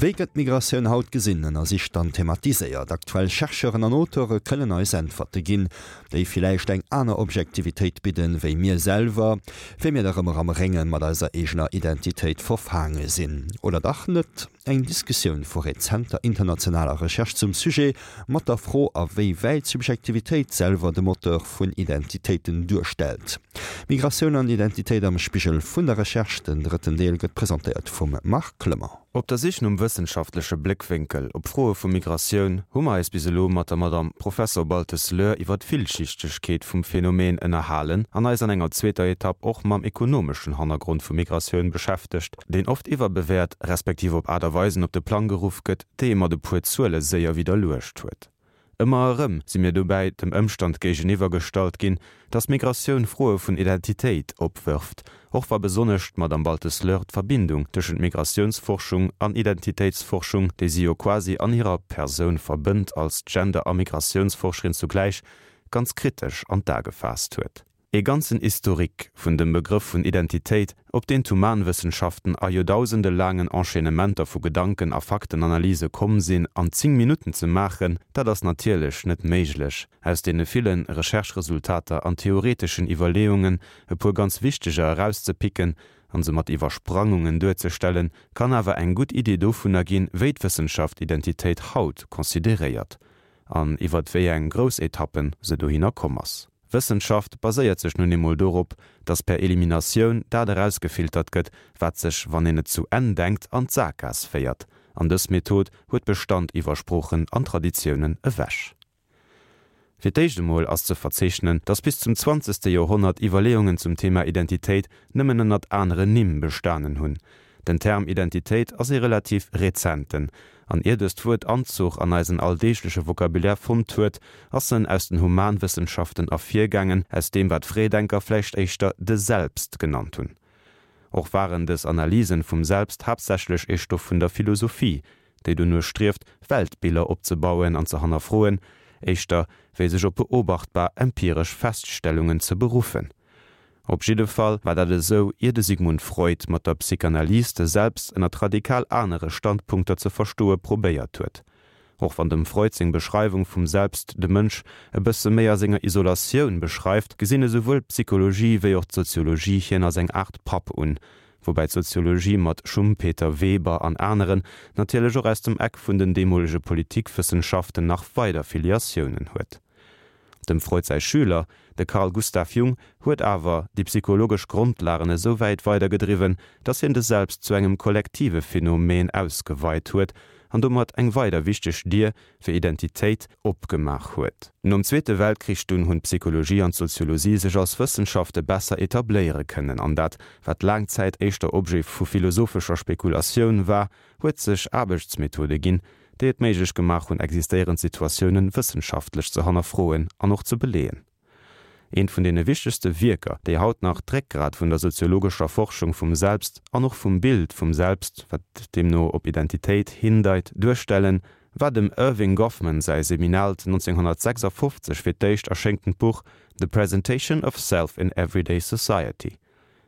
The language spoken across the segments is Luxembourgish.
Wéi gëtt d'Migratioun haut gesinn, ënnersicht an thematiséiert? Aktuell Chercheuren an Auteure kënnen eis Äntwerte ginn, déi villäicht eng aner Objektivitéit bidden, wéi mir selwer, wéi mir nach ëmmer am Rénge mat eiser eegener Identitéit verfaange sinn. Oder dach net? Eng Diskussioun vu rezenter internationaler Recherche zum Sujet, mat der Fro, a wéi wäit Subjektivitéit selwer de Moteur vun Identitéiten duerstellt. Migratioun an Identitéit am Spigel vun der Recherche, den drëtten Deel gëtt presentéiert vum Marc Clement. Op der Sich nom wëssenschaftleche Bléckwénkel op Froe vu Migratioun hu mer eis bis elo mat der Madame Professor Baltes-Löhr iwwer d'Villschichtegkeet vum Phänomen ënnerhalen an eis an enger zweeter Etapp och mam ekonomeschen Hannergrond vu Migratioun beschäftegt, deen oft iwwerbewäert, respektiv op Aart a Weisen op de Plang geruff gëtt, déi ee mat e puer Zuele séier widderluecht huet. Ëmmer erëm si mir dobäi dem Ëmstand géigeniwwer gestallt ginn, datt Migratioun Froe vun Identitéit opwërft, och wa besonnesch d'Madame Baltes-Löhr d'Verbindung tëschent Migratiounsforschung an Identitéitsforschung, déi si jo quasi an hirer Persoun verbënnt als Gender a Migratiounsforscherin zugläich, ganz kritesch an d'A gefaasst huet. Ee ganzen Historique vun dem Begrëff vun Identitéit, op deen d'Humanwëssenschaften a joerdausende laangen Enchaînementer vu Gedanken a Faktenanalyse komm sinn, an 10 Minutten ze maachen, dat ass natierlech net méiglech. Aus deene ville Recherche-Resultater an theoreteschen Iwwerleeungen e puer ganz wichteger erauszepicken an se mat Iwwersprangungen duerzestellen, kann awer eng gutt Idee dovunner ginn, wéi d'Wëssenschaft Identitéit haut consideréiert an iwwert wéi eng grouss Etappen se dohinner komm ass. Wëssenschaft baséiert sech nun eemol dorop, dass per Eliminatioun dat erausgefiltert gëtt, wat sech, wann een et zu Enn denkt, an d'Sakgaass féiert. An dës Method huet Bestand iwwer Sproochen an Traditiounen ewech. Fir d'éischt emol ass ze verzeechnen, dass bis zum zwanzegste Joerhonnert Iwwerleeungen zum Thema Identitéit nëmmen ënnert aneren Nimm bestanen hunn. Den Term Identitéit ass ee relativ rezenten, an ier dëst Wuert Anzuch an eisen alldeegleche Vocabulaire fonnt huet, ass en aus den Humanwëssenschaften ervirgaangen, aus deem wat Fréidenker vläicht éischter de Selbst genannt hunn. Och waren dës Analysen vum Selbst haaptsächlech ee Stoff vun der Philosophie, déi dono strieft, Weltbiller opzebauen an ze hannerfroen, éischter wéi sech op beobachtbar empiresch Feststellungen ze beruffen. Op jidde Fall war dat esou, ier de Sigmund Freud mat der Psychanalyse de Selbst ënnert radikal anere Standpunkter ze verstoe probéiert huet. Och wann dem Freud seng Beschreiwung vum Selbst de Mënsch e bësse méi a senger Isolatioun beschreift, gesinn esouwuel d'Psychologie wéi och d'Soziologie hien als eng Aart Papp un, woubäi d'Soziologie mat Schumpeter, Weber an aneren natierlech och aus dem Eck vun den deemolege Politikwëssenschaften nach weider Filiatiounen huet. Dem Freud säi Schüler, de Carl Gustav Jung, huet awer déi psychologesch Grondlagen esou wäit weidergedriwwen, datt hien de Selbst zu engem kollektive Phänomen ausgeweit huet an domat eng weider wichteg Dier fir Identitéit opgemaach huet. Nom Zweete Weltkrich dunn hunn d'Psychologie an d'Soziologie sech als Wëssenschafte besser etabléiere kënnen an dat, wat laang Zäit éischter Objet vu philosophescher Spekulatioun war, huet sech Aarbechtsmethode ginn, déi et méiglech gemaach hunn, existéierend Situatiounen wëssenschaftlech ze hannerfroen an och ze beleeën. Eent vun deene wichtegste Wierker, déi haut nach d'Réckgrat vun der soziologescher Forschung vum Selbst an och vum Bild vum Selbst, wat deemno op Identitéit hindeit, duerstellen, war dem Erving Goffman säi seminaalt 1956 fir d'éischt erschéngtent Buch The Presentation of Self in Everyday Society.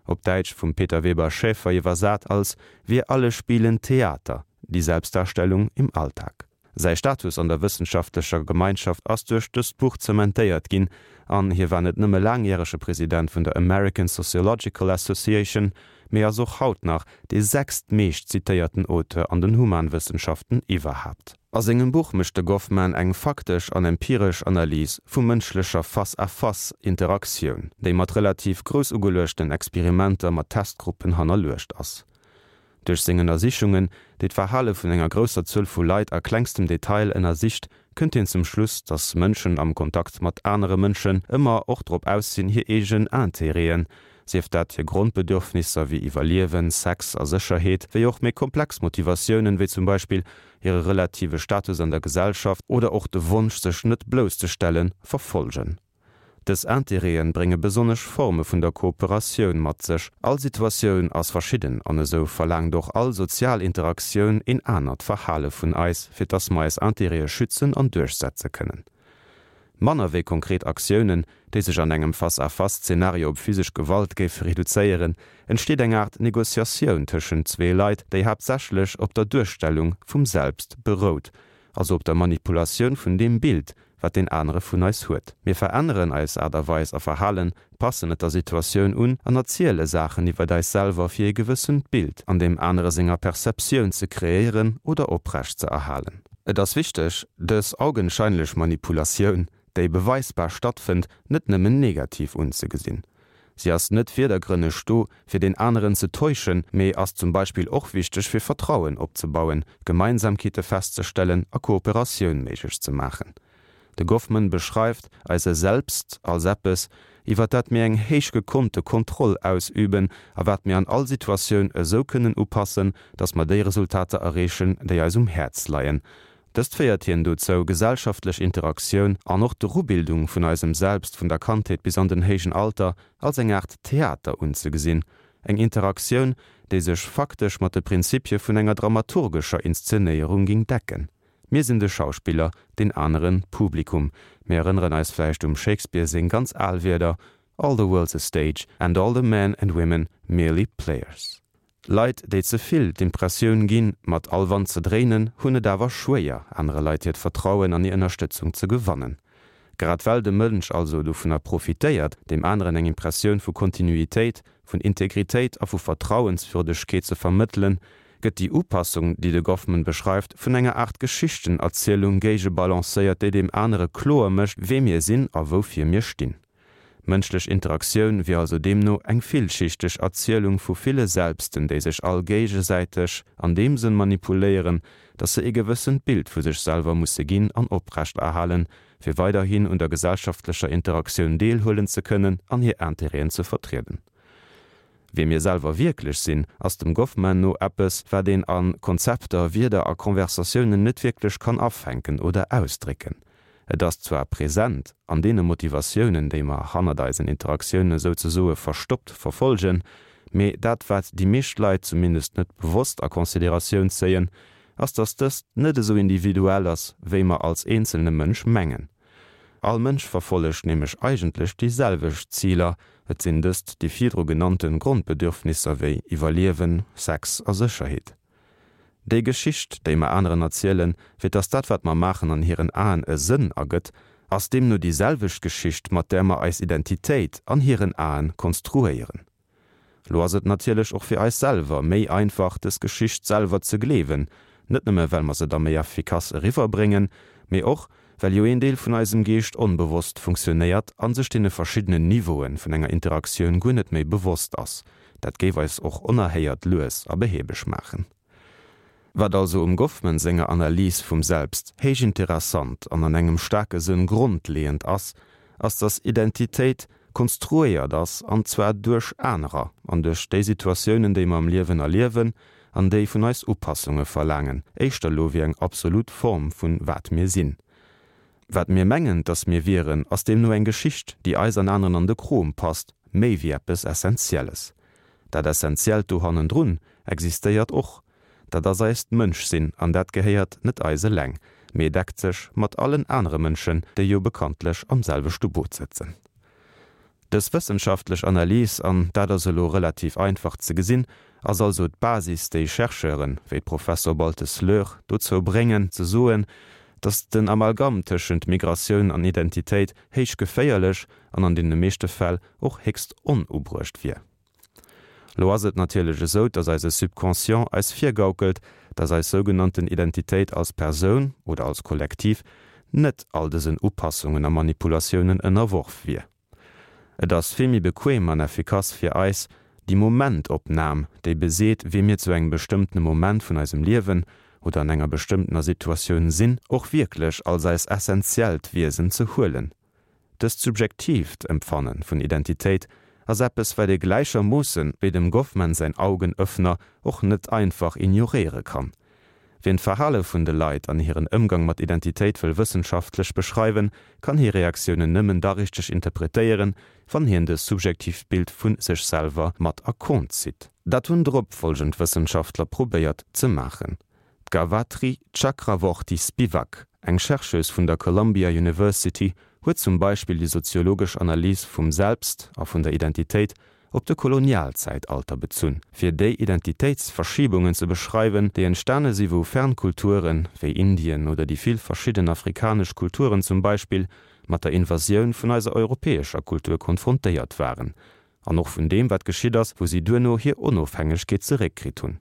op Däitsch vum Peter Weber Schäfer iwwersat als Wir alle spielen Theater, die Selbstdarstellung im Alltag. Säi Status an der wëssenschaftlecher Gemeinschaft ass duerch dëst Buch zementéiert ginn an hie war net nëmme laangjärege President vun der American Sociological Association, mee ass och haut nach dee sechstmeescht zitéierten Auteur an den Humanwëssenschaften iwwerhaapt. A sengem Buch mécht de Goffman eng faktesch an empiresch Analys vu mënschlecher Face-à-face-Interaktioun, déi mat relativ grouss ugeluechten Experimenter mat Testgruppen hannerluecht ass. Duerch seng Ënnersichungen, déi d'Verhale vun enger grousser Zuel vu Leit a klengstem Detail ënnersicht, kënnt hien zum Schluss, datt Mënschen am Kontakt mat anere Mënschen ëmmer och drop aus sinn, hir eegen Intérêten, sief dat hir Grondbedürfnisser wéi Iwwerliewen, Sex a Sécherheet, wéi och méi komplex Motivatiounen, wéi zum Beispill hire relative Status an der Gesellschaft oder och de Wonsch sech net blousszestellen, verfolgen. Dës Intérêten brénge besonnesch Forme vun der Kooperatioun mat sech. All Situatioun ass verschidden an esou verlaangt och all sozial Interaktioun een anert Verhale vun eis, fir dass mer eis Intérêtë schützen an duerchsetze kënnen. Manner wéi konkret Aktiounen, déi sech an engem Face-à-face-Zenario op physesch Gewalt géife reduzéieren, entsteet eng Aart Negociatioun tëschent zwee Leit, déi haaptsächlech op der Duerstellung vum Selbst berout, also op der Manipulatioun vun deem Bild, wat deen anere vun eis huet. Mir veränneren eis Aart a Weis a Verhalen, passen et der Situatioun un an erziele Saachen iwwert eis selwer fir ee gewëssent Bild an deem anere senger Perceptioun ze kreéieren oder oprecht ze erhalen. Et ass wichteg, dës augenscheinlech Manipulatioun, déi beweisbar stattfënnt, net nëmmen negativ unzegesinn. Si ass net virdergrënneg do, fir deen aneren ze täuschen, mee ass zum Beispill och wichteg fir Vertrauen opzebauen, Gemeinsamkeete festzestellen a Kooperatioun méiglech ze maachen. De Goffman beschreift eise Selbst als eppes, iwwer dat mir eng héich gekonnte Kontroll ausüben a wat mir an all Situatioun esou kënnen upassen, datt mer déi Resultater erreechen, déi eis um Häerz leien. Dëst féiert hien dozou, gesellschaftlech Interaktioun an och d'Erubildung vun eisem Selbst vun der Kandheet bis an den héijen Alter als eng Aart Theater unzegesinn, eng Interaktioun, déi sech faktesch mat de Prinzipie vun enger dramaturgescher Inszenéierung ging decken. Mir sinn de Schauspiller, deen aneren d'Publikum. Mir erënneren eis vläicht um Shakespeare seng ganz al Wierder, All the world's a stage and all the men and women merely players. Leit, déi ze vill d'Impressioun ginn, mat all Wand ze dréinen, hunn et awer schwéier, anere Leit hiert Vertrauen an hir Ënnerstëtzung ze gewannen. Grad well de Mënsch also dovunner profitéiert, deem aneren eng Impressioun vu Kontinuitéit, vun Integritéit a vu Vertrauenswürdegkeet ze vermëttelen, gëtt déi Upassung, déi de Goffman beschreift, vun enger Aart Geschichtenerzielung géigebalancéiert, déi deem anere kloer mécht, wee mir sinn a woufir mir stinn. Mënschlech Interaktioun wier also deemno eng villschichteg Erzielung vu ville Selbsten, déi sech all géigesäiteg an deem Sënn manipuléieren, datt se ee gewëssent Bild vu sech selwer musse ginn an oprechterhalen, fir weiderhin un der gesellschaftlecher Interaktioun deelhuelen ze kënnen an hir Intérêten ze vertrieden. Wie mir selwer wierklech sinn, ass dem Goffman no eppes, wat een a Konzepter, Wierder a Conversatiounen net wierklech kann afänken oder ausdrécken. Et ass zwar present an deene Motivatiounen, déi mer hannert eisen Interaktiounen souzesoe verstoppt verfolgen, mee dat wat déi meescht Leit zumindest net bewosst a Consideratioun zéien, ass dass dëst net esou individuell ass, wéi mer als eenzelne Mënsch mengen. All Mënsch verfollegt nämlech eigentlech déi selwecht Ziler, et sinn dëst déi virdru genannte Grondbedürfnisser wéi Iwwerliewen, Sex a Sécherheet. Déi Geschicht, déi mer aneren erzielen, fir dass dat wat mer maachen an hiren Aen e Sënn ergëtt, ass deemno déi selwecht Geschicht, mat där mer eis Identitéit an hiren Aen konstruéieren. Lo ass et natierlech och fir eis selwer méi einfach, dës Geschicht selwer ze gleewen, net nëmme well mer se da méi effikass eriwwerbréngen, mee och, well jo een Deel vun eisem Geescht onbewosst funktionéiert a sech deene verschiddenen Niveaue vun enger Interaktioun guer net méi bewosst ass. Dat géif eis och onerhéiert lues a behäbeg maachen. Wat also um Goffman senger Analys vum Selbst héich interessant an an engem staarke Sënn grondleeënd ass, ass dass Identitéit konstruéiert ass, an zwar duerch anerer an duerch déi Situatiounen déi mer am Liewen erliewen an déi vun eis Upassunge verlaangen, éischter elo wéi eng absolut Form vun wat mir sinn. Wat mir mengen, dass mir wieren, ass deemno eng Geschicht, déi eis an aneren an de Krom passt, méi wéi eppes Essentielles. Dat Essentiellt do hannendrun existéiert och, dat ass eist Mënschsinn an dat gehéiert net eis eleng, mee deckt sech mat allen anere Mënschen, déi jo bekanntlech am selwechte Boot sëtzen. Dës wëssenschaftlech Analys, an dat ass elo relativ einfach ze gesinn, ass also d'Basis, déi Chercheuren, wéi d'Professor Baltes-Löhr, dozou bréngen, ze soen, datt den Amalgam tëschent Migratioun an Identitéit héich geféierlech an an deene meeschte Fäll och héchst onubruecht wier. Lo ass et natierlech esou, dass eise Subconscient eis virgaukelt, dass eis sougenannten Identitéit als Persoun oder als Kollektiv net all dësen Upassungen a Manipulatiounen ënnerworf wier. Et ass vill méi bequem an effikass fir eis, déi Momentopnam, déi beseet, wie mir zu engem bestëmmtene Moment vun eisem Liewen oder an enger bestëmmtener Situatioun sinn, och wierklech als eis essentiellt Wiesen ze huelen. Dëst subjektiivt Empfanne vun Identitéit ass eppes, wat ee gläichermoosse wéi dem Goffman säin Augenöffner och net einfach ignoréiere kann. Wien d'Verhale vun de Leit an hiren Ëmgang mat Identitéit wëll wëssenschaftlech beschreiwen, kann hir Reaktiounen nëmmen da richteg interpretéieren, wann hien dës subjektiivt Bild vu sech selwer mat a Kont zitt. Dat hunn drop folgend Wëssenschaftler probéiert ze maachen. D'Gavatri Chakravorty Spivak, eng Chercheuse vun der Columbia University, huet zum Beispill déi soziologesch Analys vum Selbst a vun der Identitéit op de Kolonialzäitalter bezunn, fir déi Identitéitsverschiebungen ze beschreiwen, déi entstane si wou fern Kulturen, wéi Indien oder déi vill verschidden afrikanesch Kulturen zum Beispill, mat der Invasioun vun eiser europäescher Kultur konfrontéiert waren, an och vun deem wat geschitt ass, wou si duerno hir Onofhängegkeet zeréckkritt hunn.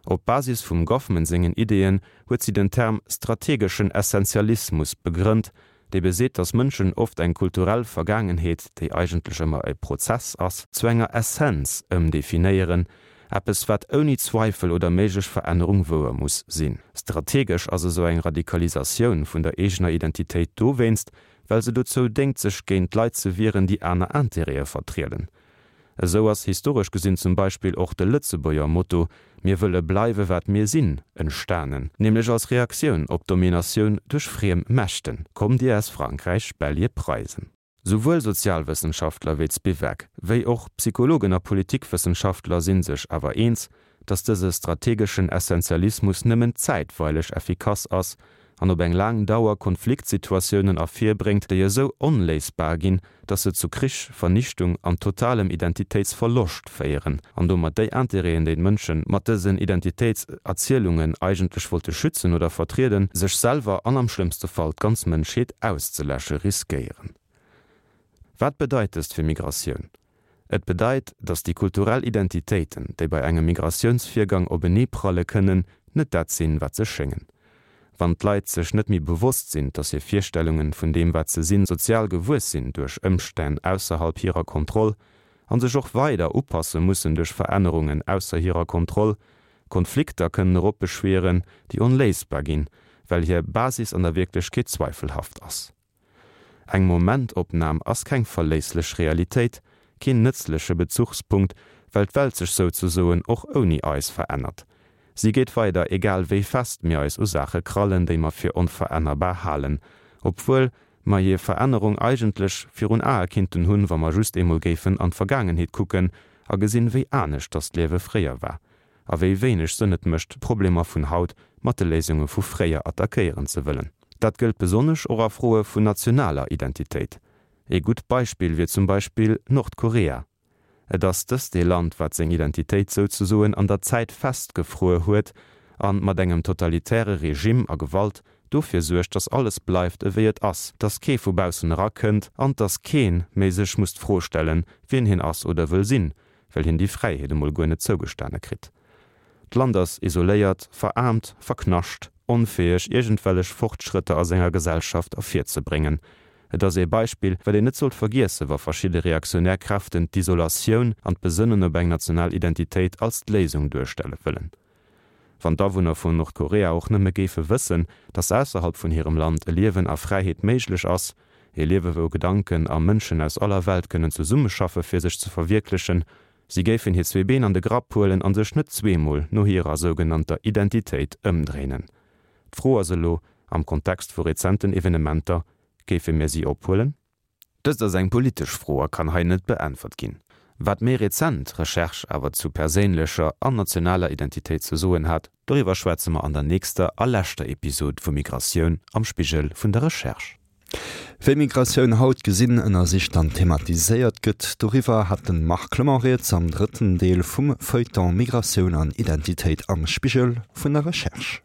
Op Basis vum Goffman sengen Ideeën huet si den Term strategeschen Essentialismus begrënnt, dee beseet, datt Mënschen oft eng kulturell Vergaangenheet, déi eigentlech ëmmer e Prozess ass, zu enger Essenz ëmdefinéieren, eppes wat ouni Zweifel oder méiglech Verännerung wouer muss sinn. Strategesch ass esou eng Radikalisatioun vun der eegener Identitéit dowéinst, well se dozou déngt sech géint Leit ze wieren, déi aner Intérêtë vertrieden. Esou ass historesch gesinn zum Beispill och de Lëtzebuerger Motto Mir wëlle bleiwe wat mir sinn entstanen, nämlech als Reaktioun op d'Dominatioun duerch friem Mächten, Kommt Dir aus Frankräich, Belje, Preisen. Souwuel Sozialwëssenschaftler wéi d'Spivak, wéi och Psychologen a Politikwëssenschaftler si sech awer eens, datt dëse strategeschen Essentialismus nëmmen zäitweileg effikass ass an op eng laang Dauer Konfliktsituatiounen ervirbréngt, déi esou onléisbar ginn, datt se zu Krich, Vernichtung an totalem Identitéitsverloscht féieren an domat déi Intérêten, déi d'Mënsche mat dësen Identitéitserzielungen eigentlech wollte schützen oder vertrieden, sech selwer an am schlëmmste Fall d'ganz Mënschheet auszeläsche riskéieren. Wat bedeit dëst fir Migratioun? Et bedeit, datt déi kulturell Identitéiten, déi bei engem Migratiounsvirgang openeepralle kënnen, net dat sinn, wat se schéngen. Wann d'Leit sech net méi bewosst sinn, datt hir Virstellungen vun deem, wat se sinn, sozial gewuess sinn duerch Ëmstänn ausserhalb hirer Kontroll an sech och weider upasse mussen duerch Verännerungen ausser hirer Kontroll, Konflikter kënnen eropbeschwieren, déi onléisbar ginn, well hir Basis an der Wierklechkeet zweifelhaft ass. Eng Momentopnam ass keng verléisslech Realitéit, keen nëtzleche Bezuchspunkt, well d'Welt sech souzesoen och ouni eis verännert. Si geet weider, egal wéi fest mir eis u Saache krallen, déi mer fir onverännerbar halen, obwuel mer hir Verännerung eigentlech virun Ae kinnten hunn, wa mer just eemol géifen an d'Vergaangenheet kucken a gesinn, wéi anescht dass d'Liewe fréier war. A wéi wéineg Sënn et mécht, d'Problemer vun haut mat de Léisunge vu fréier attackéieren ze wëllen. Dat gëllt besonnesch och a Froe vun nationaler Identitéit. Ee gutt Beispill wier zum Beispill Nordkorea. Et ass dëst ee Land, wat seng Identitéit souzesoen an der Zäit festgefruer huet an mat engem totalitäre Regime a Gewalt dofir suergt, dass alles bleift ewéi et ass, dass kee vu baussen erakënnt an dass kee méi sech muss d'Fro stellen, wien hien ass oder wëll sinn, well hien déi Fräiheet emol guer net zougestane kritt. D'Land ass isoléiert, veraarmt, verknascht, onfäeg iergendwellech Fortschrëtter a senger Gesellschaft ervirzebréngen. Et ass ee Beispill, wat een net sollt vergiessen, wa verschidde reaktionär Kräften d'Isolatioun an d'Besënnen op eng national Identitéit als d'Léisung duerstelle wëllen. Wann d'Awunner vun Nordkorea och nëmme géife wëssen, datt ausserhalb vun hirem Land e Liewen a Fräiheet méiglech ass, e Liewe wou Gedanken a Mënschen aus aller Welt kënnen zesummeschaffe fir sech ze verwierklechen, si géifen hir zwee Been an de Grapp huelen an sech net zweemol no hirer sougenannter Identitéit ëmdréinen. D'Fro ass elo, am Kontext vu rezenten Evenementer, géife mir si ophuelen? Dëst ass eng politesch Fro a kann hei net beäntwert ginn. Wat méi rezent Recherche awer zu perséinlecher an nationaler Identitéit ze soen hat, doriwwer schwätze mer an der nächster a leschter Episod vu Migratioun am Spigel vun der Recherche. Wéi Migratioun haut gesinn, ënnersicht an thematiséiert gëtt, doriwwer hat de Marc Clement rieds am drëtten Deel vum Feuilleton Migratioun an Identitéit am Spigel vun der Recherche.